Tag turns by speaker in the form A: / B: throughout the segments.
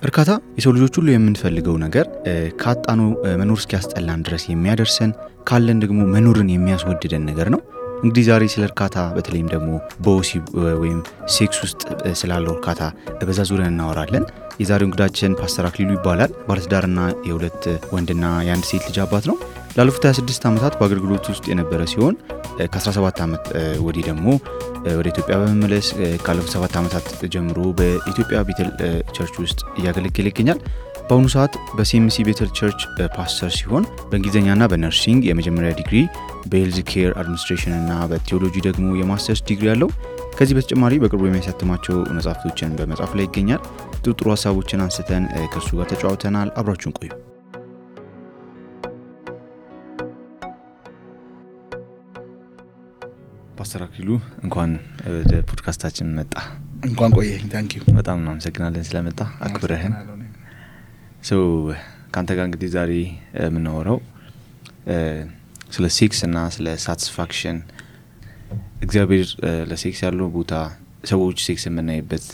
A: እርካታ የሰው ልጆች ሁሉ የምንፈልገው ነገር ካጣኑ መኖር እስኪያስጠላን ድረስ የሚያደርሰን ካለን ደግሞ መኖርን የሚያስወድደን ነገር ነው። እንግዲህ ዛሬ ስለ እርካታ በተለይም ደግሞ በወሲብ ወይም ሴክስ ውስጥ ስላለው እርካታ በዛ ዙሪያ እናወራለን። የዛሬው እንግዳችን ፓስተር አክሊሉ ይባላል። ባለትዳርና የሁለት ወንድና የአንድ ሴት ልጅ አባት ነው። ላለፉት 26 ዓመታት በአገልግሎት ውስጥ የነበረ ሲሆን ከ17 ዓመት ወዲህ ደግሞ ወደ ኢትዮጵያ በመመለስ ካለፉት 7 ዓመታት ጀምሮ በኢትዮጵያ ቤተል ቸርች ውስጥ እያገለገለ ይገኛል። በአሁኑ ሰዓት በሲኤምሲ ቤተል ቸርች ፓስተር ሲሆን በእንግሊዝኛና በነርሲንግ የመጀመሪያ ዲግሪ፣ በሄልዝ ኬር አድሚኒስትሬሽን እና በቴዎሎጂ ደግሞ የማስተርስ ዲግሪ ያለው። ከዚህ በተጨማሪ በቅርቡ የሚያሳትማቸው መጽሐፍቶችን በመጻፍ ላይ ይገኛል። ጥሩ ሀሳቦችን አንስተን ከእርሱ ጋር ተጫውተናል። አብራችሁን ቆዩ። ፓስተር አክሊሉ እንኳን ወደ ፖድካስታችን መጣ።
B: እንኳን ቆየኝ። ታንኪዩ።
A: በጣም እናመሰግናለን ስለመጣ አክብረህን። ካንተ ጋር እንግዲህ ዛሬ የምናወራው ስለ ሴክስ እና ስለ ሳቲስፋክሽን፣ እግዚአብሔር ለሴክስ ያለው ቦታ፣ ሰዎች ሴክስ የምናይበት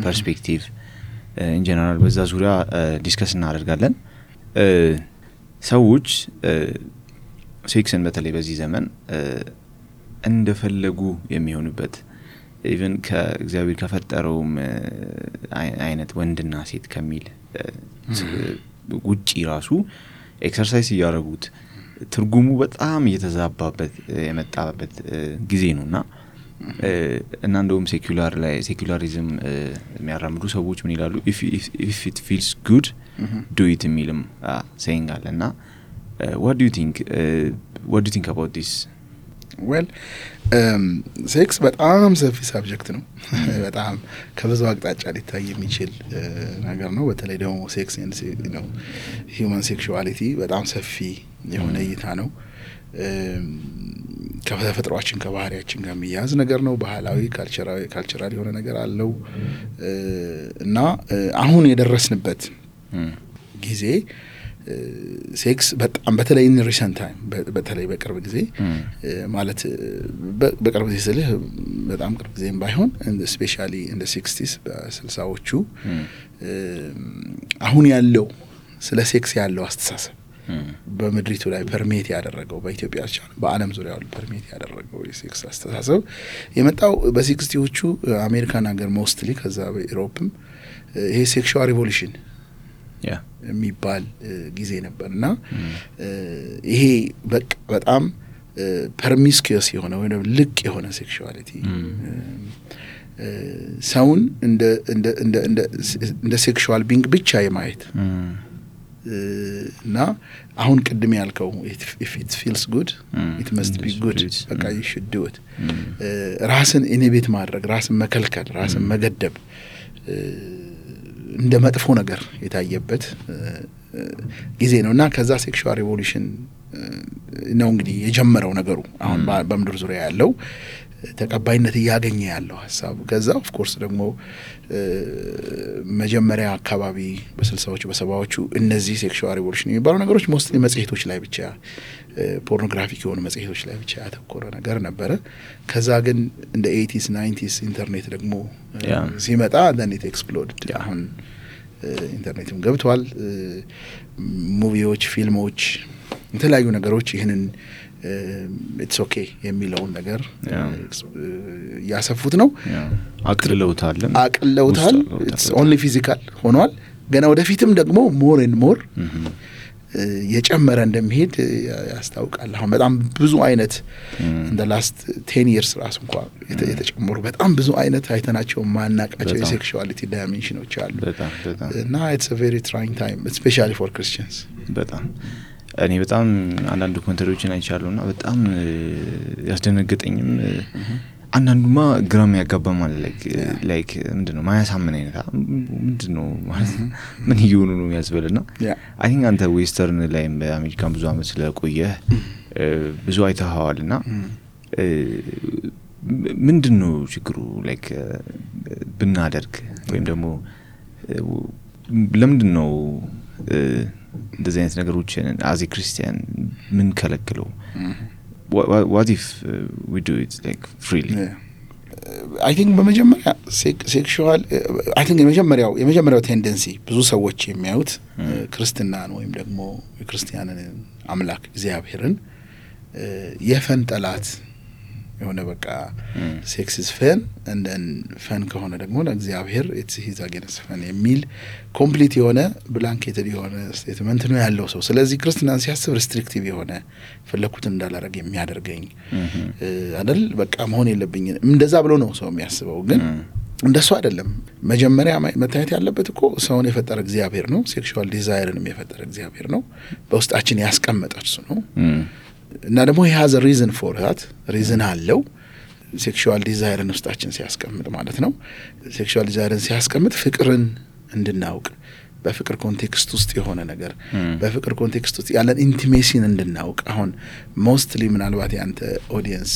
A: ፐርስፔክቲቭ ኢን ጀነራል በዛ ዙሪያ ዲስከስ እናደርጋለን። ሰዎች ሴክስን በተለይ በዚህ ዘመን እንደፈለጉ የሚሆኑበት ኢቭን ከእግዚአብሔር ከፈጠረውም አይነት ወንድና ሴት ከሚል ውጪ ራሱ ኤክሰርሳይዝ ያደረጉት ትርጉሙ በጣም እየተዛባበት የመጣበት ጊዜ ነውና እና እንደውም ሴኩላሪዝም የሚያራምዱ ሰዎች ምን ይላሉ? if it feels good do it የሚልም saying አለና what do you think about this?
B: well ሴክስ በጣም ሰፊ ሳብጀክት ነው። በጣም ከብዙ አቅጣጫ ሊታይ የሚችል ነገር ነው። በተለይ ደግሞ ሴክስ ነው ሂውማን ሴክሹዋሊቲ በጣም ሰፊ የሆነ እይታ ነው። ከተፈጥሯችን ከባህሪያችን ጋር የሚያዝ ነገር ነው። ባህላዊ ካልቸራል የሆነ ነገር አለው እና አሁን የደረስንበት ጊዜ ሴክስ በጣም በተለይ in recent time በተለይ በቅርብ ጊዜ ማለት በቅርብ ጊዜ ስልህ በጣም ቅርብ ጊዜም ባይሆን especially in the 60s በ60ዎቹ አሁን ያለው ስለ ሴክስ ያለው አስተሳሰብ በመድሪቱ ላይ ፐርሜት ያደረገው በኢትዮጵያ ብቻ በአለም ዙሪያ ያለው ፐርሜት ያደረገው የሴክስ አስተሳሰብ የመጣው በ60ዎቹ አሜሪካን ሀገር ሞስትሊ ከዛ በዩሮፕም ይሄ ሴክሹዋል ሪቮሉሽን የሚባል ጊዜ ነበርና ይሄ በጣም ፐርሚስኪየስ የሆነ ወይ ልቅ የሆነ ሴክሹዋሊቲ ሰውን እንደ ሴክሹዋል ቢንግ ብቻ የማየት እና አሁን ቅድም ያልከው if it feels good it must be good በቃ you should do it ራስን ኢኒቤት ማድረግ፣ ራስን መከልከል፣ ራስን መገደብ እንደ መጥፎ ነገር የታየበት ጊዜ ነውና ከዛ ሴክሹዋል ሪቮሉሽን ነው እንግዲህ የጀመረው ነገሩ አሁን በመድር ዙሪያ ያለው ተቀባይነት ያገኘ ያለው ሐሳብ። ከዛ ኦፍ ኮርስ ደግሞ መጀመሪያ አካባቢ በ60ዎቹ በ70ዎቹ እነዚህ ሴክሹዋል ሪቮሉሽን የሚባሉ ነገሮች ሞስትሊ መጽሔቶች ላይ ብቻ ፖርኖግራፊክ የሆኑ መጽሔቶች ላይ ብቻ ያተኮረ ነገር ነበረ። ከዛ ግን እንደ 80s 90s ኢንተርኔት ደግሞ ሲመጣ then it exploded። አሁን ኢንተርኔትም ገብቷል። ሙቪዎች፣ ፊልሞች፣ የተለያዩ ነገሮች ይሄንን it's okay የሚለውን ነገር ያሰፉት ነው።
A: አቅልለውታል።
B: it's only physical ሆኗል። ገና ወደፊትም ደግሞ more and more የጨመረ እንደሚሄድ ያስታውቃል። አሁን በጣም ብዙ አይነት in the last 10 years ራሱ እንኳን የተጨመሩ በጣም ብዙ አይነት አይተናቸው ማናቃቸው የሴክሹዋሊቲ ዳይሜንሽኖች አሉ እና it's a very trying time especially for Christians።
A: በጣም እኔ በጣም አንዳንድ ኮንተሮችን አይቻለውና በጣም ያስደነገጠኝም አንዳንዱማ ግራም ያጋባማል ላይክ ምንድነው ማያሳምን አይነት ምንድነው ማለት ምን ይሁኑ ነው ያስበልና አይ ቲንክ አንተ ዌስተርን ላይ በአሜሪካን ብዙ አመት ስለቆየ ብዙ አይተሃዋልና ምንድነው ችግሩ ላይክ ብናደርግ ወይም ደግሞ ለምንድነው እንደዚህ አይነት ነገሮችን as a Christian ምን ከለክለው? What if we do it like freely?
B: አይ ቲንክ በመጀመሪያ ሴክሹዋል አይ ቲንክ የመጀመሪያው ቴንደንሲ ብዙ ሰዎች የሚያዩት ክርስትናን ወይም ደግሞ የክርስቲያንን አምላክ እግዚአብሔርን የፈን ጠላት የሆነ በቃ ሴክስ ኢዝ ፈን and then ፈን ከሆነ ደግሞ ለእግዚአብሔር it's his against ፈን የሚል ኮምፕሊት የሆነ ብላንኬትድ የሆነ ስቴትመንት ነው ያለው ሰው። ስለዚህ ክርስትናን ሲያስብ ሪስትሪክቲቭ የሆነ ፈለኩትን እንዳላረግ የሚያደርገኝ አይደል በቃ መሆን የለብኝ እንደዛ ብሎ ነው ሰው የሚያስበው። ግን እንደሱ አይደለም። መጀመሪያ መታየት ያለበት እኮ ሰውን የፈጠረ እግዚአብሔር ነው። ሴክሹዋል ዲዛይርንም የፈጠረ እግዚአብሔር ነው። በውስጣችን ያስቀመጠ እርሱ ነው። እና ደግሞ he has a reason for that reason አለው ሴክሹዋል ዲዛይርን ውስጣችን ሲያስቀምጥ ማለት ነው። ሴክሹዋል ዲዛይርን ሲያስቀምጥ ፍቅርን እንድናውቅ በፍቅር ኮንቴክስት ውስጥ የሆነ ነገር በፍቅር ኮንቴክስት ውስጥ ያለን ኢንቲሜሲን እንድናውቅ አሁን ሞስትሊ ምናልባት ያንተ ኦዲየንስ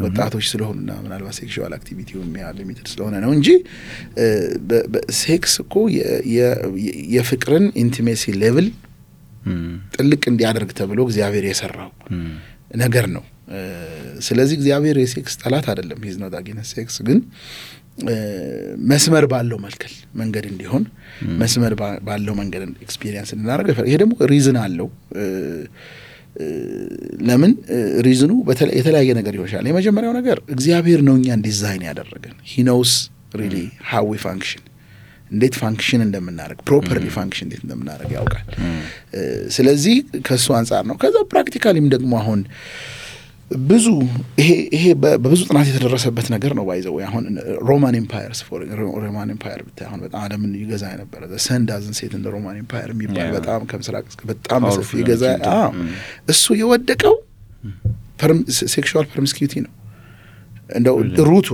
B: ወጣቶች ስለሆኑና ምናልባት ሴክሹዋል አክቲቪቲው ሊሚትድ ስለሆነ ነው እንጂ ሴክስ እኮ የፍቅርን ኢንቲሜሲ ሌቭል ጥልቅ እንዲያደርግ ተብሎ እግዚአብሔር የሰራው ነገር ነው። ስለዚህ እግዚአብሔር የሴክስ ጠላት አይደለም። he's not against sex ግን መስመር ባለው መንገድ እንዲሆን መስመር ባለው መንገድ ኤክስፒሪየንስ እንድናደርግ ይሄ ደግሞ ሪዝን አለው። ለምን ሪዝኑ የተለያየ ነገር ይሆናል። የመጀመሪያው ነገር እግዚአብሔር ነው እኛን ዲዛይን ያደረገን he knows really how we function እንዴት ፋንክሽን እንደምናደርግ ፕሮፐርሊ ፋንክሽን እንዴት እንደምናደርግ ያውቃል። ስለዚህ ከሱ አንፃር ነው። ከዛ ፕራክቲካሊም ደግሞ አሁን ብዙ ይሄ በብዙ ጥናት የተደረሰበት ነገር ነው። ባይዘው አሁን ሮማን ኤምፓየር ብታይ አሁን በጣም ዓለምን ይገዛ የነበረ ሰን ዳዝንት ሴት እንደ ሮማን ኤምፓየር የሚባል በጣም ከምስራቅ በጣም በሰፊ ይገዛ እሱ የወደቀው ሴክሹዋል ፐርሚስኪዩቲ ነው። እንደው ሩቱ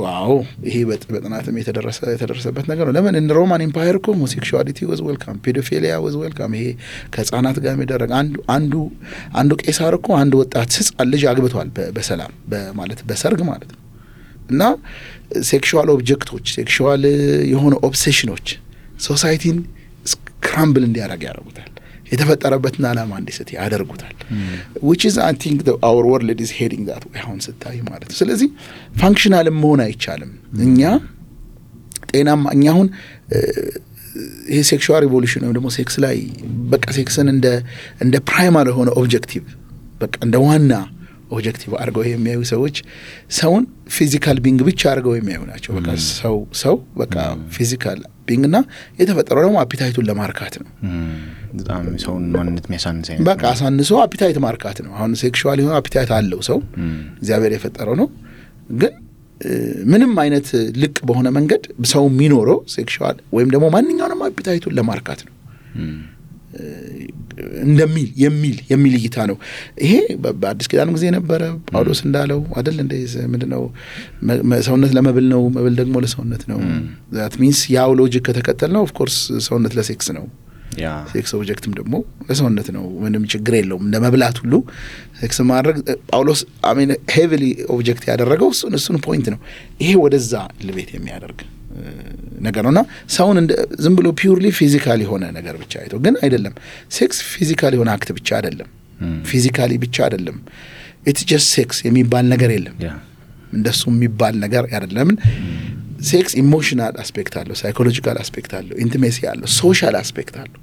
B: ይሄ በጥናትም የተደረሰበት ነገር ነው። ለምን እንደ ሮማን ኤምፓየር እኮ ሆሞሴክሹዋሊቲ was welcome ፔዶፊሊያ was welcome ይሄ ከህፃናት ጋር የሚደረግ አንዱ ቄሳር እኮ አንድ ወጣት ህፃን ልጅ አግብቷል በሰላም ማለት በሰርግ ማለት ነው። እና ሴክሹዋል ኦብጀክቶች ሴክሹዋል የሆነ ኦብሴሽኖች ሶሳይቲን ስክራምብል እንዲያደርግ ያደርጉታል። የተፈጠረበትን ዓላማ እንዲስት ያደርጉታል። which is I think our world is heading that way አሁን ስታይ ማለት ነው። ስለዚህ ፋንክሽናል መሆን አይቻልም። እኛ አሁን ይሄ ሴክሹዋል ሪቮሉሽን ነው ደግሞ ሴክስ ላይ በቃ ሴክስን እንደ ፕራይማሪ የሆነ ኦብጀክቲቭ በቃ እንደ ዋና ኦብጀክቲቭ አድርገው የሚያዩ ሰዎች ሰውን ፊዚካል ቢንግ ብቻ አድርገው የሚያዩ ናቸው። በቃ ሰው በቃ ፊዚካል ቢንግ እና የተፈጠረው ደግሞ አፒታይቱን ለማርካት ነው።
A: በጣም ሰውን ማንነት የሚያሳንስ አይነት
B: በቃ አሳንሶ አፒታይት ማርካት ነው። አሁን ሴክሹዋል የሆነ አፒታይት አለው ሰው እግዚአብሔር የፈጠረው ነው። ግን ምንም አይነት ልቅ በሆነ መንገድ ሰው የሚኖረው ሴክሹዋል ወይም ደግሞ ማንኛውንም አፒታይቱን ለማርካት ነው እንደሚል የሚል እይታ ነው። ይሄ በአዲስ ኪዳን ጊዜ ነበረ። ጳውሎስ እንዳለው አይደል እንደ ምንድነው ሰውነት ለመብል ነው፣ መብል ደግሞ ለሰውነት ነው። that means ያው ሎጂክ ከተከተልነው of course ሰውነት ለሴክስ ነው። ሴክስ ኦብጀክትም ደግሞ ለሰውነት ነው። ምንም ችግር የለውም። እንደ መብላት ሁሉ ሴክስ ማድረግ ጳውሎስ ሄቪሊ ኦብጀክት ያደረገው እሱን ፖይንት ነው። ይሄ ወደዛ ልቤት የሚያደርግ ነገር ነውና ሰውን ዝም ብሎ ፒውርሊ ፊዚካል የሆነ ነገር ብቻ አይቶ ግን አይደለም። ሴክስ ፊዚካል የሆነ አክት ብቻ አይደለም፣ ፊዚካሊ ብቻ አይደለም። ኢትስ ጀስት ሴክስ የሚባል ነገር የለም። እንደሱ የሚባል ነገር አይደለም። ሴክስ ኢሞሽናል አስፔክት አለው፣ ሳይኮሎጂካል አስፔክት አለው፣ ኢንቲሜሲ አለው፣ ሶሻል አስፔክት አለው፣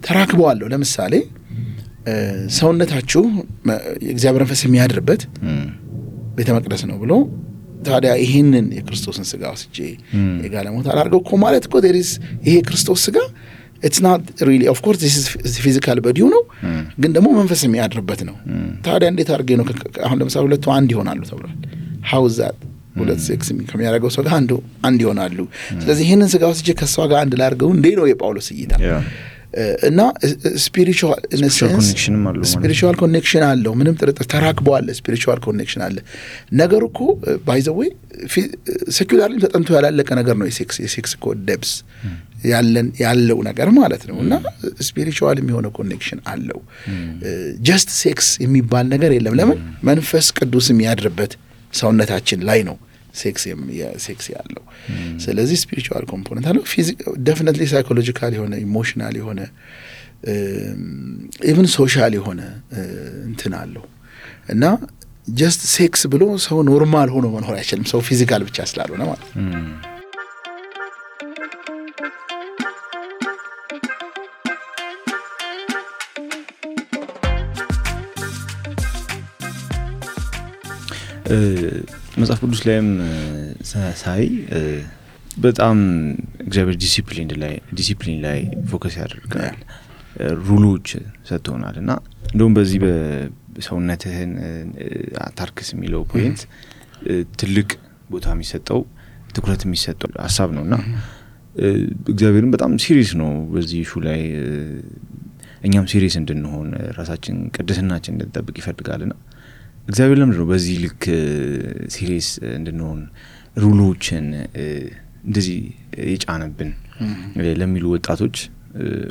B: ተራክበው አለው። ለምሳሌ ሰውነታችሁ የእግዚአብሔር መንፈስ የሚያድርበት ቤተ መቅደስ ነው ብሎ ታዲያ ይሄንን የክርስቶስን ስጋ ወስጄ የጋለሞታ አድርገው እኮ ማለት እኮ ይሄ ክርስቶስ ስጋ it's not really of course this is physical body ነው ግን ደግሞ መንፈስ የሚያድርበት ነው። ታዲያ እንዴት አድርጌ ነው አሁን ለምሳሌ ሁለቱ አንድ ይሆናሉ ተብሏል። how is that ሁለት ሴክስ ከሚያደርገው ሰው ጋር አንድ ይሆናሉ። ስለዚህ ይሄንን ስጋ ወስጄ ከሷ ጋር አንድ ላድርገው እንዴ ነው የጳውሎስ እይታ። እና ስፒሪቹዋል ኮኔክሽን አለው። ምንም ጥርጥር ተራክበዋል። ስፒሪቹዋል ኮኔክሽን አለ። ነገሩ እኮ ባይ ዘ ዌይ ሴኩላርሊ ተጠንቶ ያላለቀ ነገር ነው። የሴክስ እኮ ደብስ ያለው ነገር ማለት ነው። እና ስፒሪቹዋል የሚሆነ ኮኔክሽን አለው። ጀስት ሴክስ የሚባል ነገር የለም። ለምን? መንፈስ ቅዱስ የሚያድርበት ሰውነታችን ላይ ነው ሴክስ ያለው። ስለዚህ ስፒሪቹዋል ኮምፖነንት አለው። ዴፊኒትሊ ሳይኮሎጂካል የሆነ ኢሞሽናል የሆነ ኢቭን ሶሻል የሆነ እንትን አለው። እና ጀስት ሴክስ ብሎ ሰው ኖርማል ሆኖ መኖር አይችልም ሰው ፊዚካል ብቻ ስላልሆነ ማለት
A: መጽሐፍ ቅዱስ ላይም ሳይ በጣም እግዚአብሔር ዲሲፕሊን ላይ ፎከስ ያደርጋል ሩሎች ሰጥቶናልና እንደውም በዚህ በሰውነትህን አታርክስ የሚለው ፖይንት ትልቅ ቦታ የሚሰጠው ትኩረት የሚሰጠው ሐሳብ ነውና እግዚአብሔርም በጣም ሲሪየስ ነው በዚህ ኢሹ ላይ እኛም ሲሪየስ እንድንሆን ራሳችን ቅድስናችን እንድንጠብቅ ይፈልጋልና እግዚአብሔር ለምንድን ነው በዚህ ልክ ሲሪየስ እንድንሆን ሩሎችን እንደዚህ የጫነብን ለሚሉ ወጣቶች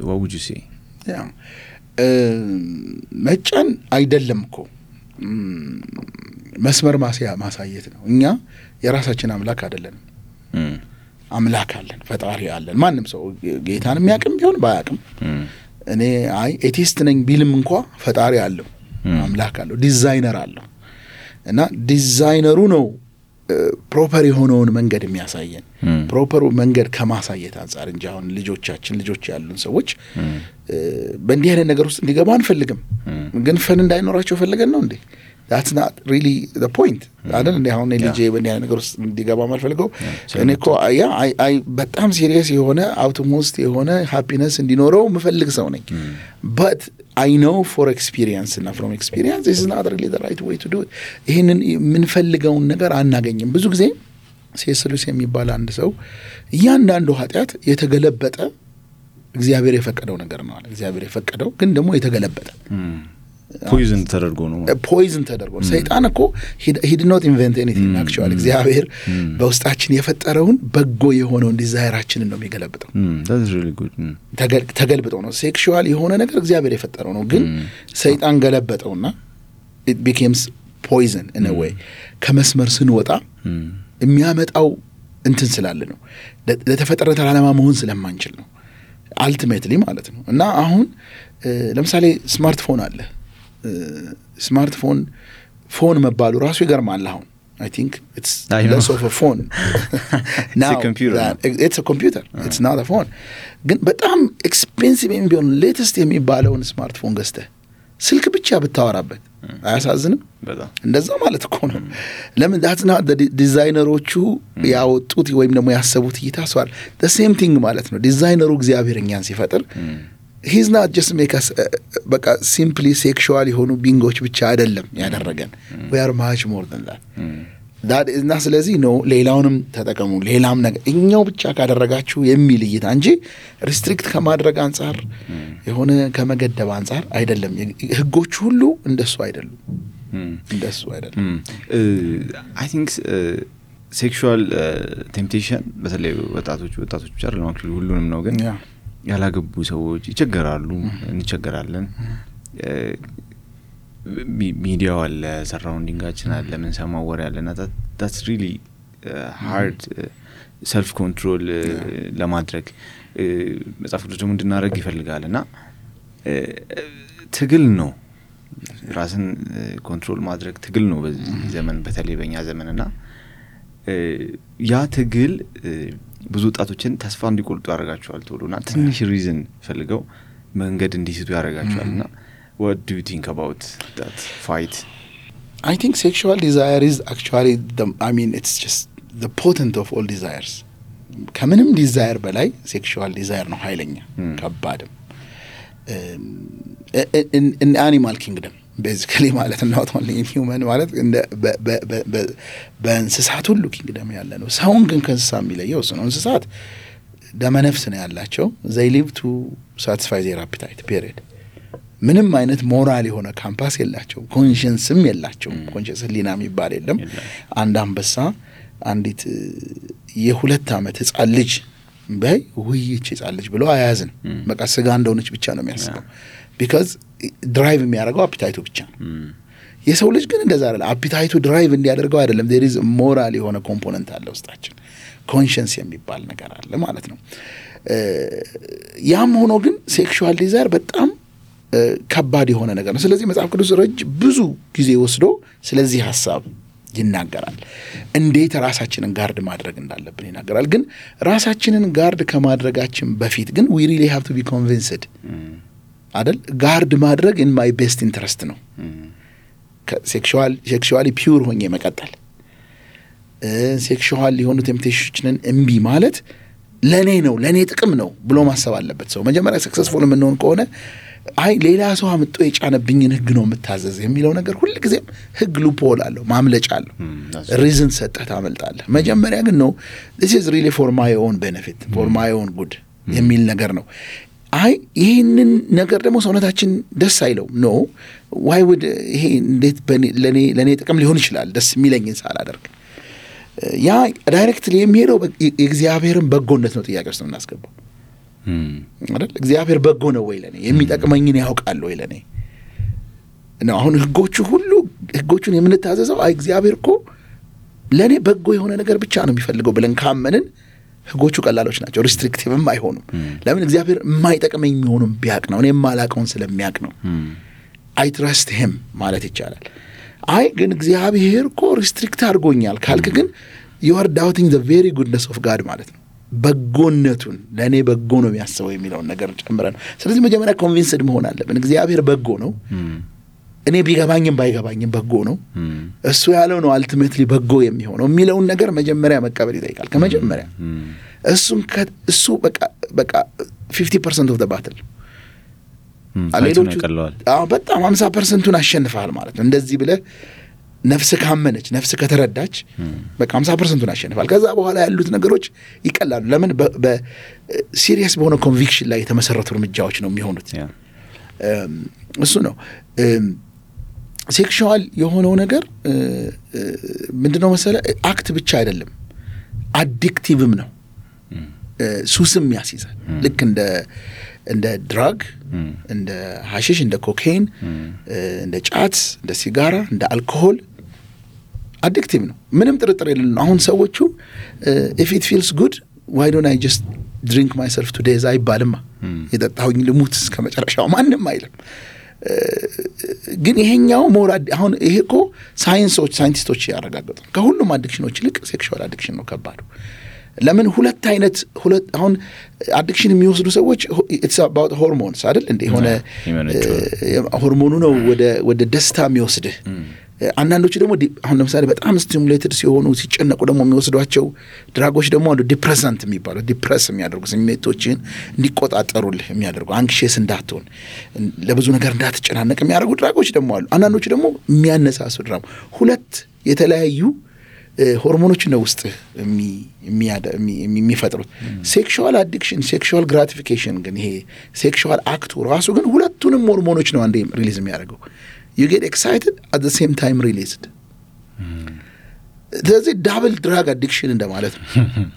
A: what would you say?
B: መጫን አይደለም እኮ መስመር ማሳየት ነው እኛ የራሳችን አምላክ አይደለንም አምላክ አለን ፈጣሪ አለን ማንም ሰው ጌታን የሚያውቅም ቢሆን ባያውቅም እኔ ኤቲስት ነኝ ቢልም እንኳን ፈጣሪ አለው አምላክ አለው ዲዛይነር አለው እና ዲዛይነሩ ነው ፕሮፐር የሆነውን መንገድ የሚያሳየን ፕሮፐሩ መንገድ ከማሳየት አንፃር እንጂ አሁን ልጆች ያሉን ሰዎች በእንዲህ አይነት ነገር ውስጥ እንዲገባ አንፈልግም ግን ፈን እንዳይኖራቸው ፈልገን ነው እንዴ that's not really the point አይደል እንዴ አሁን ልጄ በእንዲህ አይነት ነገር ውስጥ እንዲገባ ማልፈልገው እኔ እኮ በጣም ሲሪየስ የሆነ አውቶሞስት የሆነ ሃፒነስ እንዲኖረው ምፈልግ ሰው ነኝ but I know for experience and from experience this is not really the right way to do it ይሄንን ምንፈልገውን ነገር አናገኝም ብዙ ጊዜ ሴስሉስ የሚባል አንድ ሰው እያንዳንዱ ኃጢያት የተገለበጠ እግዚአብሔር የፈቀደው ነገር ነው አለ እግዚአብሔር የፈቀደው ግን ደግሞ የተገለበጠ
A: ፖይዝን ተደርጎ ሰይጣን እኮ he did not invent anything actually እግዚአብሔር በውስጣችን የፈጠረውን በጎ የሆነውን ዲዛይራችንን ነው የሚገለብጠው that's really good
B: ተገልብጠው ነው ሴክሹዋል የሆነ ነገር እግዚአብሔር የፈጠረው ነው ግን ሰይጣን ገለበጠውና it becomes poison in a way ከመስመር ስንወጣ የሚያመጣው እንትን ስላለ ነው ለተፈጠረው ዓላማ መሆን ስለማንችል ነው ultimately ማለት ነው እና አሁን ለምሳሌ ስማርትፎን አለ ፎን መባሉ ራሱ ይገርማል አሁን I think it's less of a phone now it's a computer it's not a phone ግን በጣም ኤክስፔንሲቭ የሚሆን ሌተስት የሚባለውን ስማርትፎን ገዝተህ ስልክ ብቻ ብታወራበት አያሳዝንም
A: በጣም
B: እንደዛ ማለት እኮ ነው ለምን that's not the ዲዛይነሮቹ ያወጡት ወይም ደግሞ ያሰቡት ይታስዋል the same thing ማለት ነው ዲዛይነሩ እግዚአብሔር እኛን ሲፈጥር he's not just make us በቃ simply sexual የሆኑ ቢንጎች ብቻ አይደለም ያደረገን we are much more than that is not ስለዚህ ነው ሌላውንም ተጠቀሙ ሌላም ነገር እኛው ብቻ ካደረጋችሁ የሚል እይታ እንጂ ሪስትሪክት ከማድረግ አንፃር የሆነ ከመገደብ አንፃር አይደለም ህጎች ሁሉ እንደሱ አይደሉም
A: I think sexual temptation በተለይ ወጣቶች ብቻ አይደለም ሁሉንም ነው ግን ያላገቡ ሰዎች ይቸገራሉ እንቸገራለን ሚዲያው አለ ሰራውንዲንጋችን አለ ምን ሰማው ወሬ አለና that's really hard self control ለማድረግ መጽሐፍ ቅዱስ ደግሞ እንድናረግ ይፈልጋልና ትግል ነው ራስን ኮንትሮል ማድረግ ትግል ነው በዚህ ዘመን በተለይ በእኛ ዘመንና ያ ትግል ብዙ ወጣቶችን ተስፋ እንዲቆርጡ ያደርጋቸዋል ቶሎና ትንሽ ሪዝን ፈልገው መንገድ እንዲስቱ ያደርጋቸዋልና what do you think about that fight?
B: I think sexual desire is actually it's just the potent of all desires ከምንም ዲዛይር በላይ ሴክሹዋል ዲዛይር ነው ኃይለኛ ከባድም in animal kingdom basically ማለት ነው not only in human ማለት በእንስሳት ሁሉ ኪንግደም ያለ ነው ሰውን ግን ከእንስሳ የሚለየው ነው እንስሳት ደመነፍስ ነው ያላቸው they live to satisfy their appetite period ምንም አይነት ሞራል የሆነ ካምፓስ የላቸው ኮንሺየንስም የላቸው ኮንሺየንስ ሊና የሚባል የለም አንድ አንበሳ አንዲት የሁለት ዓመት ህፃን ልጅ በይ ውይይት ህፃን ልጅ ብሎ አያዝን በቃ ስጋ እንደሆነች ብቻ ነው የሚያስበው because ድራይቭ የሚያደርገው አፒታይቱ ብቻ የሰው ልጅ ግን እንደዛ አይደለም አፒታይቱ ድራይቭ እንዲያደርገው አይደለም there is moral የሆነ ኮምፖነንት አለ ውስጣችን ኮንሺየንስ የሚባል ነገር አለ ማለት ነው ያም ሆኖ ግን ሴክሹዋል ዲዛይር በጣም ከባድ የሆነ ነገር ነው። ስለዚህ መጽሐፍ ቅዱስ ብዙ ጊዜ ወስዶ ስለዚህ ሐሳብ ይናገራል። እንዴት ራሳችንን ጋርድ ማድረግ እንዳለብን ይናገራል። ግን ራሳችንን ጋርድ ከማድረጋችን በፊት ግን we really have to be convinced አይደል? ጋርድ ማድረግ in my best interest ነው። ሴክሹዋሊ ፒውር ሆኜ መቀጠል፣ ሴክሹዋል የሆኑ ቴምፕቴሽንን እምቢ ማለት ለኔ ጥቅም ነው ብሎ ማሰብ አለበት ሰው። መጀመሪያ ሰክሰስፉል የምንሆን ከሆነ አይ ሌላ ሰው አምጥቶ የጫነብኝን ህግ ነው የምታዘዝ የሚለው ነገር ሁሉ ጊዜም ህግ ሉፕሆል አለው፣ ማምለጫ አለው። ሪዝን ሰጠህ ታመልጣለህ። መጀመሪያ ግን ነው this is really for my own benefit, for my own good የሚል ነገር ነው። አይ ይሄንን ነገር ደግሞ ሰውነታችን ደስ አይለው ነው why would ይሄ እንዴት ለኔ ጥቅም ሊሆን ይችላል ደስ የሚለኝን ሳላደርግ ያ ዳይሬክትሊ የሚሄደው የእግዚአብሔርን በጎነት ነው ጥያቄ ውስጥ የምናስገባው አይደል? እግዚአብሔር በጎ ነው ወይ ለኔ የሚጠቅመኝን ያውቃል ወይ ለኔ ነው። አሁን ህጎቹን የምንታዘዘው አይ እግዚአብሔር እኮ ለኔ በጎ የሆነ ነገር ብቻ ነው የሚፈልገው ብለን ካመንን ህጎቹ ቀላሎች ናቸው፣ ሪስትሪክቲቭም አይሆኑም። ለምን? እግዚአብሔር የማይጠቅመኝ የሚሆኑም ቢያቅ ነው፣ እኔ የማላውቀውን ስለሚያውቅ ነው። አይ ትረስት ሂም ማለት ይቻላል። አይ ግን እግዚአብሔር እኮ ሪስትሪክት አድርጎኛል ካልክ ግን you are doubting the very goodness of God ማለት ነው። በጎነቱን ለኔ በጎ ነው የሚያስበው የሚለውን ነገር ጨምረን። ስለዚህ መጀመሪያ ኮንቪንስድ መሆን አለብን እግዚአብሔር በጎ ነው፣ እኔ ቢገባኝም ባይገባኝም በጎ ነው፣ እሱ ያለው ነው አልቲሜትሊ በጎ የሚሆነው የሚለውን ነገር መጀመሪያ መቀበል ይጠይቃል። ከመጀመሪያ እሱ በቃ 50% of the battle አሌሎቹ በጣም 50%ን አሸንፈሃል ማለት ነው። እንደዚህ ብለህ ነፍስ ካመነች ነፍስ ከተረዳች በቃ 50%ን አሸንፈሃል። ከዛ በኋላ ያሉት ነገሮች ይቀላሉ። ለምን? በሲሪየስ በሆነ ኮንቪክሽን ላይ የተመሰረቱ እርምጃዎች ነው የሚሆኑት። እሱ ነው ሴክሹዋል የሆነው ነገር ምንድነው መሰለ አክት ብቻ አይደለም፣ አዲክቲቭም ነው። ሱስም ያስይዛል። ልክ እንደ ድራግ፣ እንደ ሐሺሽ፣ እንደ ኮኬን፣ እንደ ጫት፣ እንደ ሲጋራ፣ እንደ አልኮሆል አዲክቲቭ ነው። ምንም ጥርጥር የለም። አሁን ሰዎቹ if it feels good why don't I just drink myself to death አይባልማ። የጠጣሁኝ ልሙት እስከመጨረሻው ማንም አይልም። ግን ይሄኛው ሞራድ አሁን ይሄ እኮ ሳይንቲስቶች ያረጋግጡ ከሁሉም አዲክሽኖች ይልቅ ሴክሹዋል አዲክሽን ነው ከባዱ። ለምን? ሁለት አሁን አዲክሽን የሚወስዱ ሰዎች it's about hormones አይደል እንዴ? ሆነ ሆርሞኑ ነው ወደ ደስታ የሚወስድህ። አንዳንዶቹ ደግሞ አሁን ለምሳሌ በጣም ስቲሙሌትድ ሲሆኑ ሲጨነቁ ደግሞ የሚወስዷቸው ድራጎች ደግሞ አንዱ ዲፕሬሰንት የሚባለው ዲፕረስ የሚያደርጉ ስሜቶችን እንዲቆጣጠሩልህ የሚያደርጉ አንክሽስ እንዳትሆን ለብዙ ነገር እንዳትጨናነቅ የሚያደርጉ ድራጎች ደግሞ አሉ። አንዳንዶቹ ደግሞ የሚያነሳሱ ድራም ሁለት የተለያዩ ሆርሞኖች ነው ውስጥ የሚፈጥሩት። ሴክሹዋል አዲክሽን ሴክሹዋል ግራቲፊኬሽን ግን ይሄ ሴክሹዋል አክቱ ራሱ ግን ሁለቱንም ሆርሞኖች ነው አንዴ ሪሊዝ የሚያደርገው። you get excited at the same time released። ስለዚህ ዳብል ድራግ አዲክሽን እንደማለት ነው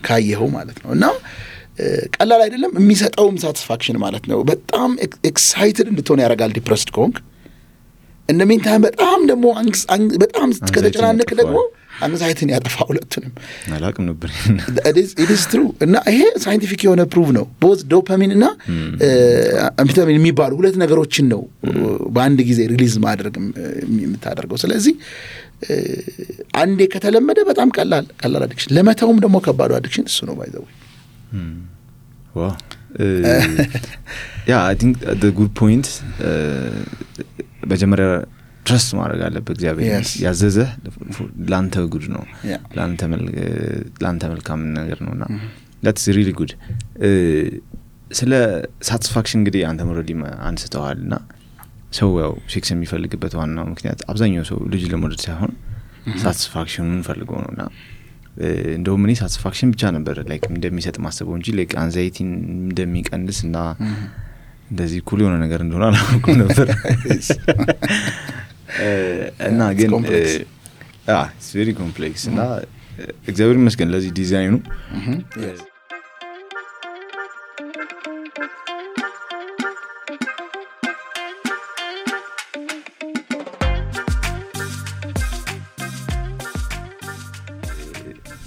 B: ካየኸው ማለት ነው። እና ቀላል አይደለም። የሚሰጠውም ሳቲስፋክሽን ማለት ነው በጣም ኤክሳይትድ እንድትሆን ያደርጋል ዲፕረስድ ከሆንክ። in the meantime በጣም ደግሞ በጣም ከተጨናነቅ ደግሞ አንግዛይትን ያጠፋ ሁለቱንም
A: አላቅም ነበር።
B: it is true። እና ይሄ ሳይንቲፊክ የሆነ ፕሩቭ ነው። both ዶፓሚን እና አምፌታሚን የሚባሉ ሁለት ነገሮችን ነው በአንድ ጊዜ ሪሊዝ ማድረግ የምታደርገው። ስለዚህ አንዴ ከተለመደ በጣም ቀላል አዲክሽን፣ ለመተውም ደግሞ ከባዱ አዲክሽን እሱ ነው ባይዘው።
A: ዋው yeah, I think the good point በጀመሪያ ትረስት ማድረግ አለበት። እግዚአብሔር ያዘዘ ላንተ ጉድ ነው፣ ላንተ መልካም ነገር ነውና that's really good። ስለ ሳቲስፋክሽን እንግዲህ አንተ ሞራሊ አንስተዋልና ሰው ያው ሴክስ የሚፈልግበት ዋናው ምክንያት አብዛኛው ሰው ልጅ ለመውለድ ሳይሆን ሳቲስፋክሽኑን ፈልገው ነውና እንደውም እኔ ሳቲስፋክሽን ብቻ ነበር ላይክ እንደሚሰጥ ማሰበው እንጂ ላይክ አንዛይቲን እንደሚቀንስና እንደዚህ ኩል የሆነ ነገር እንደሆነ አላውቅም ነበር። እና ግን it's very complex እና እግዚአብሔር ይመስገን ለዚህ ዲዛይኑ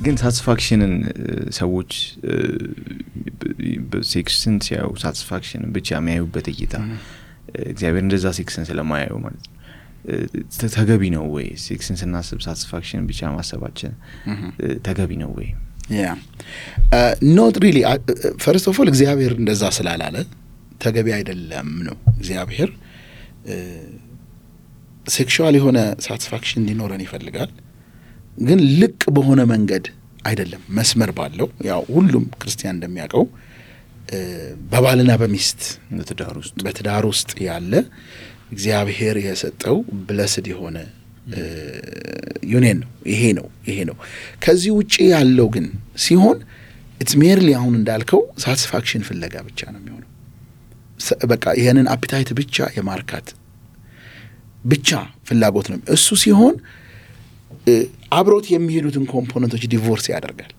A: ግን ሳቲስፋክሽንን ሰዎች በሴክስን ሲያዩ ሳቲስፋክሽንን ብቻ የሚያዩበት እይታ እግዚአብሔር እንደዛ ሴክስን ስለማያየው ማለት ነው ተገቢ ነው ወይ ሴክስን ስናስብ ሳቲስፋክሽን ብቻ ማሰባችን ተገቢ ነው ወይ
B: not really first of all እግዚአብሔር እንደዛ ስላላለ ተገቢ አይደለም ነው እግዚአብሔር ሴክሹዋል የሆነ ሳቲስፋክሽን እንዲኖረን ይፈልጋል ግን ልቅ በሆነ መንገድ አይደለም መስመር ባለው ያው ሁሉም ክርስቲያን እንደሚያውቀው በባልና በሚስት በትዳር ውስጥ ያለ እግዚአብሔር የሰጠው ብለስድ የሆነ ዩኒየን ነው ይሄ ነው ከዚህ ውጪ ያለው ግን ሲሆን it's merely አሁን እንዳልከው ሳቲስፋክሽን ፍለጋ ብቻ ነው የሚሆነው በቃ ይሄንን አፒታይት ብቻ የማርካት ብቻ ፍላጎት ነው እሱ ሲሆን አብሮት የሚሄዱትን ኮምፖነንቶች ዲቮርስ ያደርጋል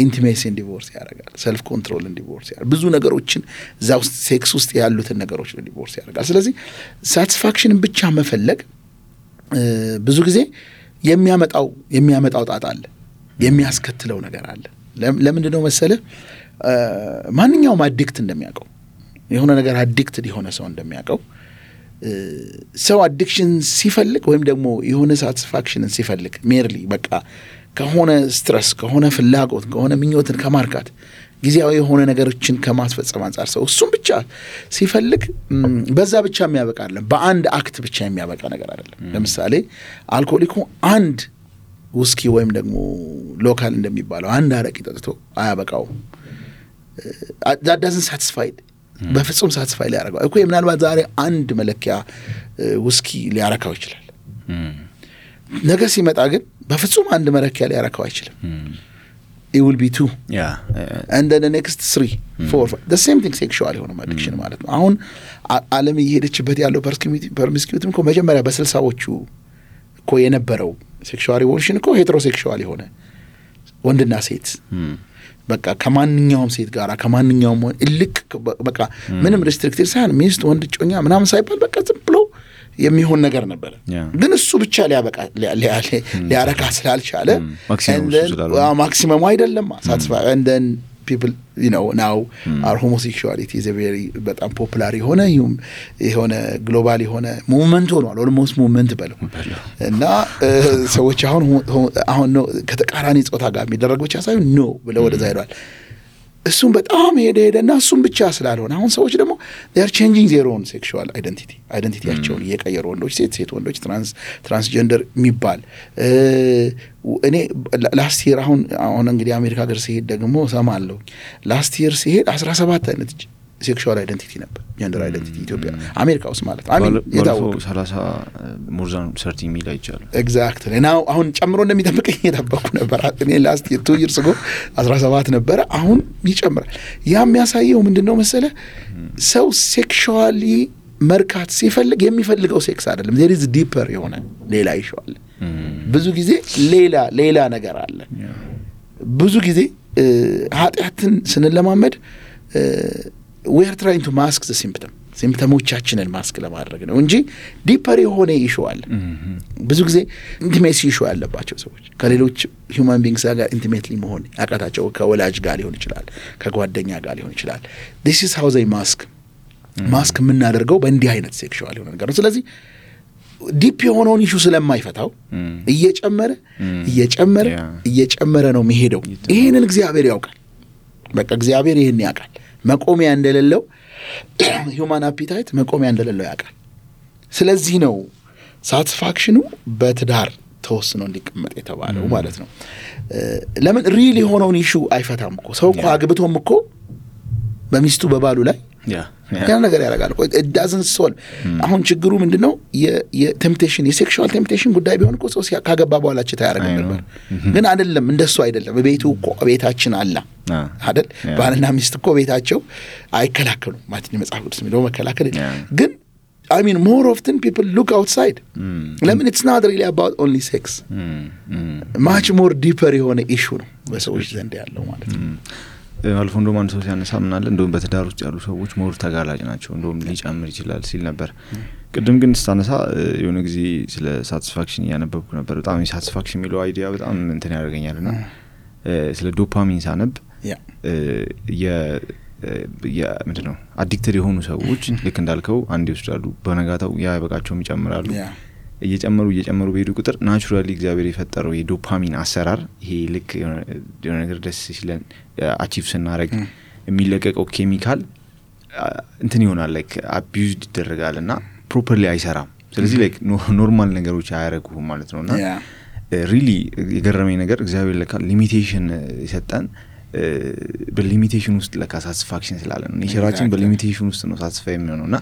B: ኢንቲሜሲን ዲቮርስ ያደርጋል ሰልፍ ኮንትሮልን ዲቮርስ ያደርጋል ብዙ ነገሮችን ዛው ሴክስ ውስጥ ያሉትን ነገሮች ዲቮርስ ያደርጋል ስለዚህ ሳቲስፋክሽንን ብቻ መፈለግ ብዙ ጊዜ የሚያመጣው ጣጣ አለ የሚያስከትለው ነገር አለ ለምንድን ነው መሰለ ማንኛውም አዲክት እንደሚያውቀው የሆነ ነገር አዲክትድ የሆነ ሰው እንደሚያውቀው ሰው አዲክሽን ሲፈልግ ወይም ደግሞ የሆነ ሳቲስፋክሽንን ሲፈልግ ሜርሊ በቃ ከሆነ ስትረስ ከሆነ ፍላጎት ከሆነ ምኞትን ከማርካት ጊዜያዊ የሆነ ነገሮችን ከማስፈጸም አንፃር ሰው እሱም ብቻ ሲፈልግ በዛ ብቻ የሚያበቃ አይደለም በአንድ አክት ብቻ የሚያበቃ ነገር አይደለም ለምሳሌ አልኮሊኩ አንድ ውስኪ ወይም ደግሞ ሎካል እንደሚባለው አንድ አረቂ ጠጥቶ አያበቃው that doesn't satisfy በፍጹም ሳቲስፋይ ሊያረጋው እኮ ምናልባት ዛሬ አንድ መለኪያ ውስኪ ሊያረካው ይችላል ነገ ሲመጣ ግን በፍጹም አንድ መለኪያ ሊያረካው አይችልም it will be 2 and then the next 3 4 the same thing sexual የሆነ addiction ማለት ነው አሁን ዓለም እየሄደችበት ያለው ፐርሚስኪዩቲቭ እኮ መጀመሪያ በ60ዎቹ እኮ የነበረው ሴክሹዋል ሪቮሉሽን እኮ ሄትሮሴክሹዋል የሆነ ወንድና ሴት በቃ ከማንኛውም ሴት ጋር ከማንኛውም እልክ በቃ ምንም ሪስትሪክትድ ሳይሆን ሚስት ወንድ ጮኛ ምናምን ሳይባል በቃ ዝም ብሎ የሚሆን ነገር ነበር ግን እሱ ብቻ ሊያረካ ስላልቻለ ማክሲመም አይደለም ሳቲስፋይ and then people now our homosexuality is a very በጣም ፖፑላር የሆነ ግሎባል የሆነ ሙቭመንት ሆኗል almost movement በለው እና ሰዎች አሁን ነው ከተቃራኒ ጾታ ጋር የሚደረግ ብቻ ሳይሆን ነው ብለው ወደዛ ሄዷል እሱም በጣም ሄደና እሱም ብቻ ስላልሆነ አሁን ሰዎች ደግሞ they are changing their own sexual identityያቸውን እየቀየሩ ወንዶች ሴት ወንዶች ትራንስጀንደር የሚባል እኔ ላስት ይር አሁን እንግዲህ አሜሪካ ሀገር ሲሄድ ደግሞ ሰማለሁ ላስት ይር ሲሄድ 17 አይነት ሴክሹዋል አይደንቲቲ ነበር ጀንደር አይደንቲቲ ኢትዮጵያ አሜሪካ ውስጥ ማለት አሜን የታወቀ
A: 30 more than 30 ሚል አይቻሉ
B: ኤግዛክትሊ ናው አሁን ጨምሮ እንደሚጠብቀኝ የታበቁ ነበር እኔ ላስት 2 years ago 17 ነበር አሁን ይጨምራል ያ የሚያሳየው ምንድነው መሰለ ሰው ሴክሹዋሊ መርካት ሲፈልግ የሚፈልገው ሴክስ አይደለም there is deeper የሆነ ሌላ ይሻል ብዙ ጊዜ ሌላ ነገር አለ ብዙ ጊዜ ኃጢያትን ስንለማመድ we are trying to mask the symptomoቻችንን ማስክ ለማድረግ ነው እንጂ ዲፐር የሆነ ኢሹ አለ ብዙ ጊዜ ኢንቲሜሲ ኢሹ ያለባቸው ሰዎች ከሌሎች human beings ጋር ኢንቲሜትሊ መሆን ያቃታቸው ከወላጅ ጋር ሊሆን ይችላል ከጓደኛ ጋር ሊሆን ይችላል this is how they ማስክ የምናደርገው በእንዲህ አይነት ሴክሹዋል የሆነ ነገር ነው ስለዚህ ዲፕ የሆነውን ኢሹ ስለማይፈታው እየጨመረ ነው የሚሄደው ይሄንን እግዚአብሔር ያውቃል በቃ እግዚአብሔር ይሄን ያውቃል መቆሚያ እንደሌለው human appetite መቆሚያ እንደሌለው ያውቃል ስለዚህ ነው ሳቲስፋክሽኑ በትዳር ተወስኖ እንዲቀመጥ የተባለው ማለት ነው ለምን ሪሊ የሆነውን ኢሹ አይፈታም እኮ ሰው እኮ አግብቶም እኮ በሚስቱ በባሉ ላይ ያ ነገር ያደርጋል እኮ it doesn't solve አሁን ችግሩ ምንድነው የቴምፕቴሽን የሴክሹዋል ቴምፕቴሽን ጉዳይ ቢሆን እኮ ሰው ካገባ በኋላ ችታ ያደርግ ነበር ግን አይደለም እንደሱ አይደለም በቤቱ እኮ ቤታችን አላ አይደል ባልና ሚስት እኮ ቤታቸው አይከላከሉም ማለት ነው መጽሐፍ ቅዱስ የሚለው መከላከል ግን I mean more often people look outside ለምን it's not really about only sex much more deeper የሆነ issue ነው በሰዎች ዘንድ ያለው ማለት ነው
A: አልፎ እንደውም አንድ ሰው ሲያነሳምናል እንደውም በትዳር ውስጥ ያሉ ሰዎች ሞር ተጋላጭ ናቸው እንደውም ሊጨምር ይችላል ሲል ነበር ቅድም ግን ስታነሳ የሆነ ጊዜ ስለ ሳቲስፋክሽን ያነበብኩ ነበር በጣም ሳቲስፋክሽን የሚለው አይዲያ በጣም እንትን ያደርገኛልና ስለ ዶፓሚን ሳነብ ምንድነው አዲክትድ የሆኑ ሰዎች ልክ እንዳልከው አንዴ ይወስዳሉ በነጋታው ያ በቃቸውም ይጨምራሉ እየጨመሩ በሄዱ ቁጥር ናቹራሊ እግዚአብሔር የፈጠረው የዶፓሚን አሰራር ይሄ ልክ የሆነ ነገር ደስ ሲለን አቺቭ ስናደርግ የሚለቀቀው ኬሚካል እንትን ይሆናል ላይክ አቢዩዝድ ይደረጋልና ፕሮፐርሊ አይሰራም ስለዚህ ላይክ ኖርማል ነገሮች አያረጉም ማለት ነውና ሪሊ የገረመኝ ነገር እግዚአብሔር ለካ ሊሚቴሽን ይሰጣን በሊሚቴሽን ውስጥ ለካ ሳቲስፋክሽን ስላለ ነው ኔቸራችን በሊሚቴሽን ውስጥ ነው ሳቲስፋይ የሚሆነውና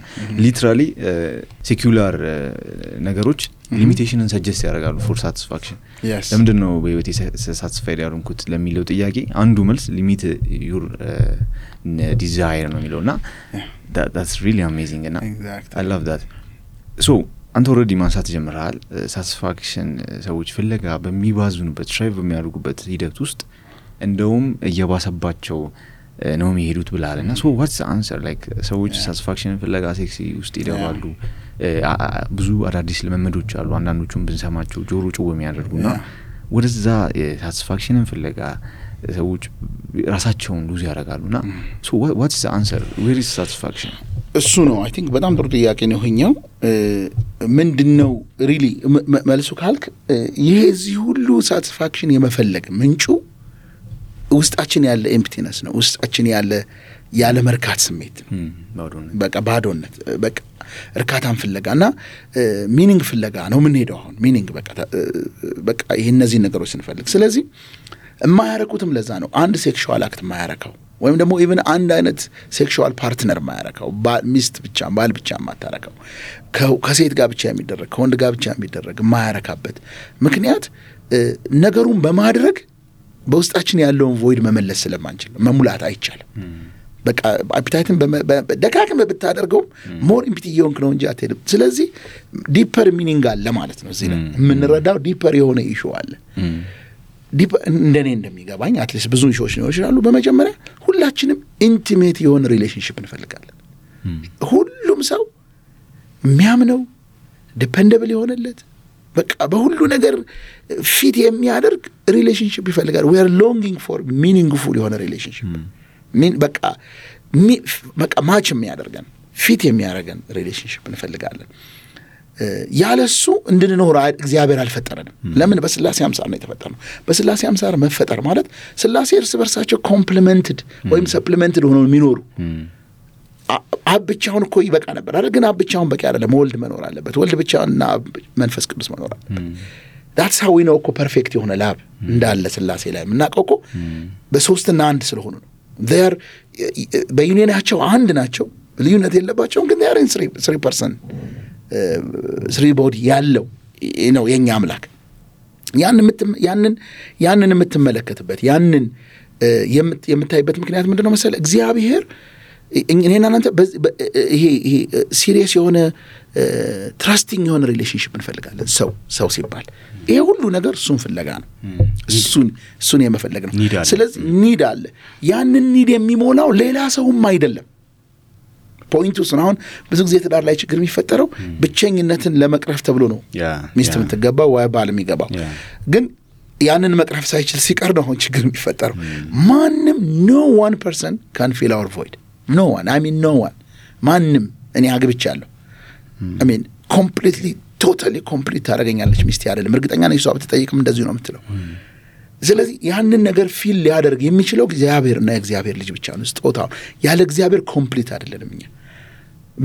A: ሊትራሊ ሴኩላር ነገሮች ሊሚቴሽንን ሰጀስት ያደርጋሉ ፎር ሳቲስፋክሽን ለምንድን ነው በህይወቴ ሳቲስፋይድ ያልሆንኩት ለሚለው ጥያቄ አንዱ መልስ ሊሚት ዩር ዲዛይር ነው የሚለውና that's really amazing and I love that so አንተ ኦልሬዲ ማንሳት ጀምረሃል ሳቲስፋክሽን ሰዎች ፍለጋ በሚባዙንበት ትራይቭ በሚያደርጉበት ሂደት ውስጥ እንደውም እየባሰባቸው ነው የሚሄዱት ብላለና so what's the answer like ሰዎች ሳቲስፋክሽን ፍለጋ ሴክሲ ውስጥ ይደባሉ ብዙ አዳዲስ ለመመዶች አሉ አንዳንዶቹም ብንሰማቸው ጆሮ ጭው የሚያደርጉና ወደዛ ሳቲስፋክሽንን ፍለጋ ሰዎች ራሳቸውን ሉዝ ያደርጋሉና so what's the answer where is satisfaction
B: እሱ ነው አይ ቲንክ በጣም ጥሩ ጥያቄ ነው ይሄኛው ምንድነው ሪሊ መልሱ ካልክ ይሄ እዚህ ሁሉ ሳቲስፋክሽን የመፈለግ ምንጩ ውስጣችን ያለ ኤምፕቲነስ ነው ውስጣችን ያለ መርካት ስሜት በቃ ባዶነት በቃ እርካታን ፍለጋና ሚኒንግ ፍለጋ ነው ምን ሄደው አሁን ሚኒንግ በቃ ይሄ እነዚህ ነገሮች ስንፈልግ ስለዚህ የማያረኩትም ለዛ ነው አንድ ሴክሹዋል አክት የማያረካው ወይም ደግሞ ኢቭን አንድ አይነት ሴክሹዋል ፓርትነር የማያረካው ሚስት ብቻ ባል ብቻ የማታረካው ከሴት ጋር ብቻ የሚደረግ ከወንድ ጋር ብቻ የሚደረግ የማያረካበት ምክንያት ነገሩን በማድረግ በውስጣችን ያለውን ቮይድ መመለስ ስለማንችል መሙላት አይቻልም በቃ አፒታይትን ደካክም ብታደርገው ሞር ኢምፕቲ የሆንክ ነው እንጂ አትሄድም ስለዚህ ዲፐር ሚኒንግ አለ ማለት ነው እዚህ ላይ የምንረዳው ዲፐር የሆነ ኢሹ አለ እንደኔ እንደሚገባኝ አትሊስት ብዙ ኢሹዎች ነው ይችላሉ በመጀመሪያ ሁላችንም ኢንቲሜት የሆነ ሪሌሽንሺፕ እንፈልጋለን ሁሉም ሰው የሚያምነው ዲፔንደብል የሆነለት በቃ በሁሉ ነገር ፊት የሚያደርግ ሪሌሽንሺፕ ይፈልጋል we are longing for meaningful የሆነ ሪሌሽንሺፕ በቃ ማች የሚያደርገን ፊት የሚያደርገን ሪሌሽንሺፕ እንፈልጋለን ያለሱ እንድንኖር እግዚአብሔር አልፈጠረንም ለምን በስላሴ አምሳል ነው የተፈጠረው በስላሴ አምሳል መፈጠር ማለት ስላሴ እርስ በርሳቸው ኮምፕሊመንትድ ወይም ሰፕሊመንትድ ሆነው የሚኖሩ አብቻውን እኮ ይበቃ ነበር አይደል ግን አብቻውን በቂ አይደለም ወልድ መኖር አለበት ወልድ ብቻውንና መንፈስ ቅዱስ መኖር አለበት that's how we know እኮ ፐርፌክት የሆነ ላብ እንዳለ ስላሴ ላይ ምናቀው እኮ በሶስትና አንድ ስለሆኑ ነው they are በዩኒየናቸው አንድ ናቸው ልዩነት የለባቸው ግን they are in 3% 3 body ያለው ነው የኛ አምላክ ያንን የምትመለከትበት ያንን የምታይበት ምክንያት ምንድነው መሰለ እግዚአብሔር እኔና እናንተ ይሄ ሲሪየስ የሆነ ትራስቲንግ የሆነ ሪሌሽንሺፕ እንፈልጋለን ሰው ሲባል ይሄ ሁሉ ነገር እሱን ፍለጋ ነው እሱን የመፈለግ ነው ስለዚህ ኒድ አለ ያንን ኒድ የሚሞላው ሌላ ሰውም አይደለም ፖይንቱ ነው ብዙ ጊዜ ትዳር ላይ ችግር የሚፈጠረው ብቸኝነትን ለመቅረፍ ተብሎ ነው ሚስት የምትገባው ወይ ባል የሚገባው ግን ያንን መቅረፍ ሳይችል ሲቀር ነው ችግር የሚፈጠረው ማንም no one person can fill our void no one I mean no one ማንም እኔ አግብቻለሁ I mean completely totally complete ታረጋኛለች ሚስት አይደለም እርግጠኛ ነኝ እሷ ብትጠይቅም እንደዚህ ነው የምትለው ስለዚህ ያንን ነገር ፊል ሊያደርግ የሚችለው እግዚአብሔርና የእግዚአብሔር ልጅ ብቻ ነው ስጦታው ያለ እግዚአብሔር ኮምፕሊት አይደለም እኛ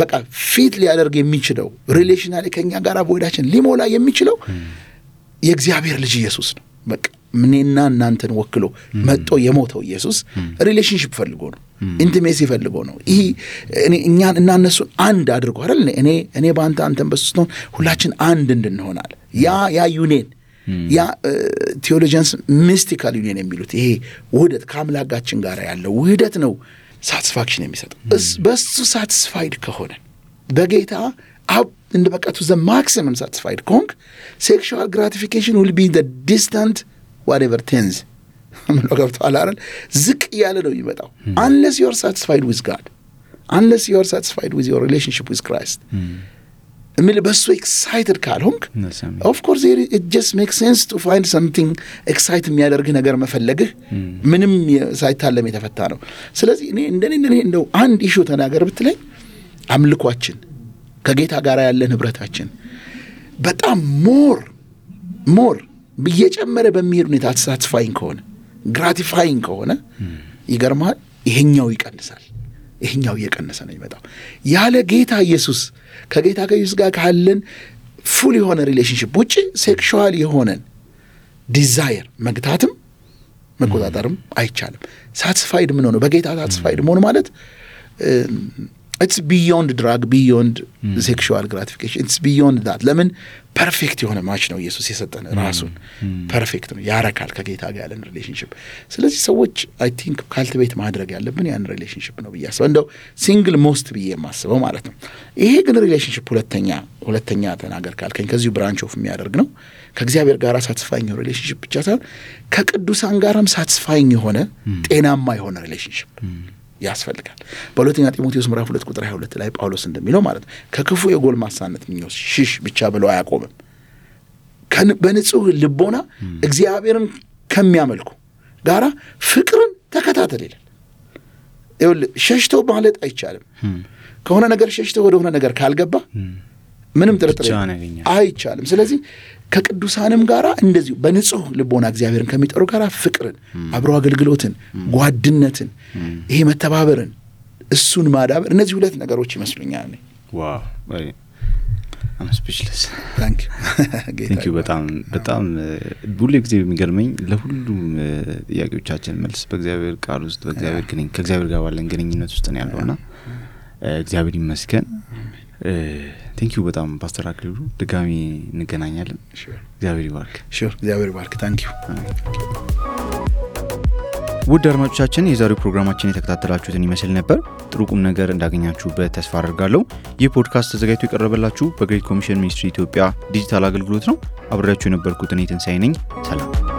B: በቃ ፊት ሊያደርግ የሚችለው ሪሌሽናሊ ከኛ ጋር ቮይዳችን ሊሞላ የሚችለው የእግዚአብሔር ልጅ ኢየሱስ ነው በቃ ምንና እናንተን ወክሎ መጥቶ የሞተው ኢየሱስ ሪሌሽንሺፕ ፈልጎ ነው ኢንቲሜሲ ፈልጎ ነው ይሄ እኛን እና እነሱን አንድ አድርጎ አይደል እኔ ባንተ አንተን በሱ ነው ሁላችን አንድ እንድንሆናል ያ ዩኒየን ያ ቴዎሎጂያንስ ሚስቲካል ዩኒየን የሚሉት ይሄ ውህደት ከአምላካችን ጋር ያለው ውህደት ነው ሳቲስፋክሽን የሚሰጠው በሱ ሳቲስፋይድ ከሆነ በጌታ እንደ በቃ to the maximum satisfied kong sexual gratification will be the distant whatever tens ገብቷል አይደል ዝቅ ያለ ነው የሚመጣው unless you are satisfied with God unless you are satisfied with your relationship with Christ እምል በሱ ኤክሳይትድ ካልሆንክ ኦፍ ኮርስ it just makes sense to find something exciting የሚያደርግ ነገር መፈለግህ ምንም ሳይታለም የተፈታ ነው። ስለዚህ እኔ እንደው አንድ ኢሹ ተናገር ብትለኝ አምልኳችን ከጌታ ጋር ያለ ንብረታችን በጣም ሞር በየጨመረ በሚሄድ ሁኔታ ሳቲስፋይንግ ከሆነ ግራቲፋይንግ ከሆነ ይገርማል ይሄኛው ይቀንሳል። ይሄኛው እየቀነሰ ነው የሚመጣው። ያለ ጌታ ኢየሱስ ከጌታ ኢየሱስ ጋር ካለን ፉል የሆነ ሪሌሽንሺፕ ውጪ ሴክሹዋል የሆነን ዲዛየር መግታትም መቆጣጠርም አይቻልም። ሳቲስፋይድ ምን ሆነ በጌታ ሳቲስፋይድ መሆን ማለት it's beyond drug, beyond sexual gratification. It's beyond that. ለምን ፐርፌክት የሆነ ማች ነው ኢየሱስ የሰጠን ራሱን ፐርፌክት ነው ያረካል ከጌታ ጋር ያለን ሪሌሽንሺፕ። ስለዚህ ሰዎች አይ ቲንክ ካልቲቬት ማድረግ ያለብን ያን ሪሌሽንሺፕ ነው ብያስበው እንደው ሲንግል ሞስት ብዬ የማስበው ማለት ነው። ይሄ ግን ሪሌሽንሺፕ ሁለተኛ ተናገር ካልከኝ ከዚሁ ብራንች ኦፍ የሚያደርግ ነው። ከእግዚአብሔር ጋር ሳቲስፋይንግ የሆነ ሪሌሽንሺፕ ብቻ ሳይሆን ከቅዱሳን ጋርም ሳቲስፋይንግ የሆነ ጤናማ የሆነ ሪሌሽንሺፕ ያስፈልጋል። በሁለተኛ ጢሞቴዎስ ምዕራፍ 2 ቁጥር 22 ላይ ጳውሎስ እንደሚለው ማለት ከክፉ የጎልማሳነት ምኞት ሽሽ ብቻ ብሎ አያቆምም። በንጹህ ልቦና እግዚአብሔርን ከሚያመልኩ ጋራ ፍቅርን ተከታተል ይላል። ሸሽቶ ማለት አይቻልም። ከሆነ ነገር ሸሽቶ ወደ ሆነ ነገር ካልገባ ምንም ጥርጥር አይቻልም። ስለዚህ ከቅዱሳንም ጋራ እንደዚሁ በንጹህ ልቦና እግዚአብሔርን ከሚጠሩ ጋራ ፍቅርን፣ አብሮ አገልግሎትን፣ ጓድነትን፣ ይሄ መተባበርን እሱን ማዳበር እነዚህ ሁለት ነገሮች ይመስሉኛል።
A: ዋው I'm speechless.
B: Thank you.
A: በጣም ሁሉ ጊዜ የሚገርመኝ ለሁሉም ጥያቄዎቻችን መልስ በእግዚአብሔር ቃል ውስጥ ከእግዚአብሔር ጋር ባለን ግንኙነት ውስጥ ነው ያለውና እግዚአብሔር ይመስገን። Thank you በጣም ፓስተር አክሊሉ ድጋሚ እንገናኛለን። እግዚአብሔር ይባርክ።
B: እግዚአብሔር ይባርክ። Thank you.
A: ውድ አድማጮቻችን የዛሬው ፕሮግራማችን የተከታተላችሁትን ይመስል ነበር። ጥሩ ቁም ነገር እንዳገኛችሁበት ተስፋ አደርጋለሁ። ይህ ፖድካስት ተዘጋጅቶ የቀረበላችሁ በግሬት ኮሚሽን ሚኒስትሪ ኢትዮጵያ ዲጂታል አገልግሎት ነው። አብሬያችሁ የነበርኩት እኔ ትንሳኤ ነኝ። ሰላም።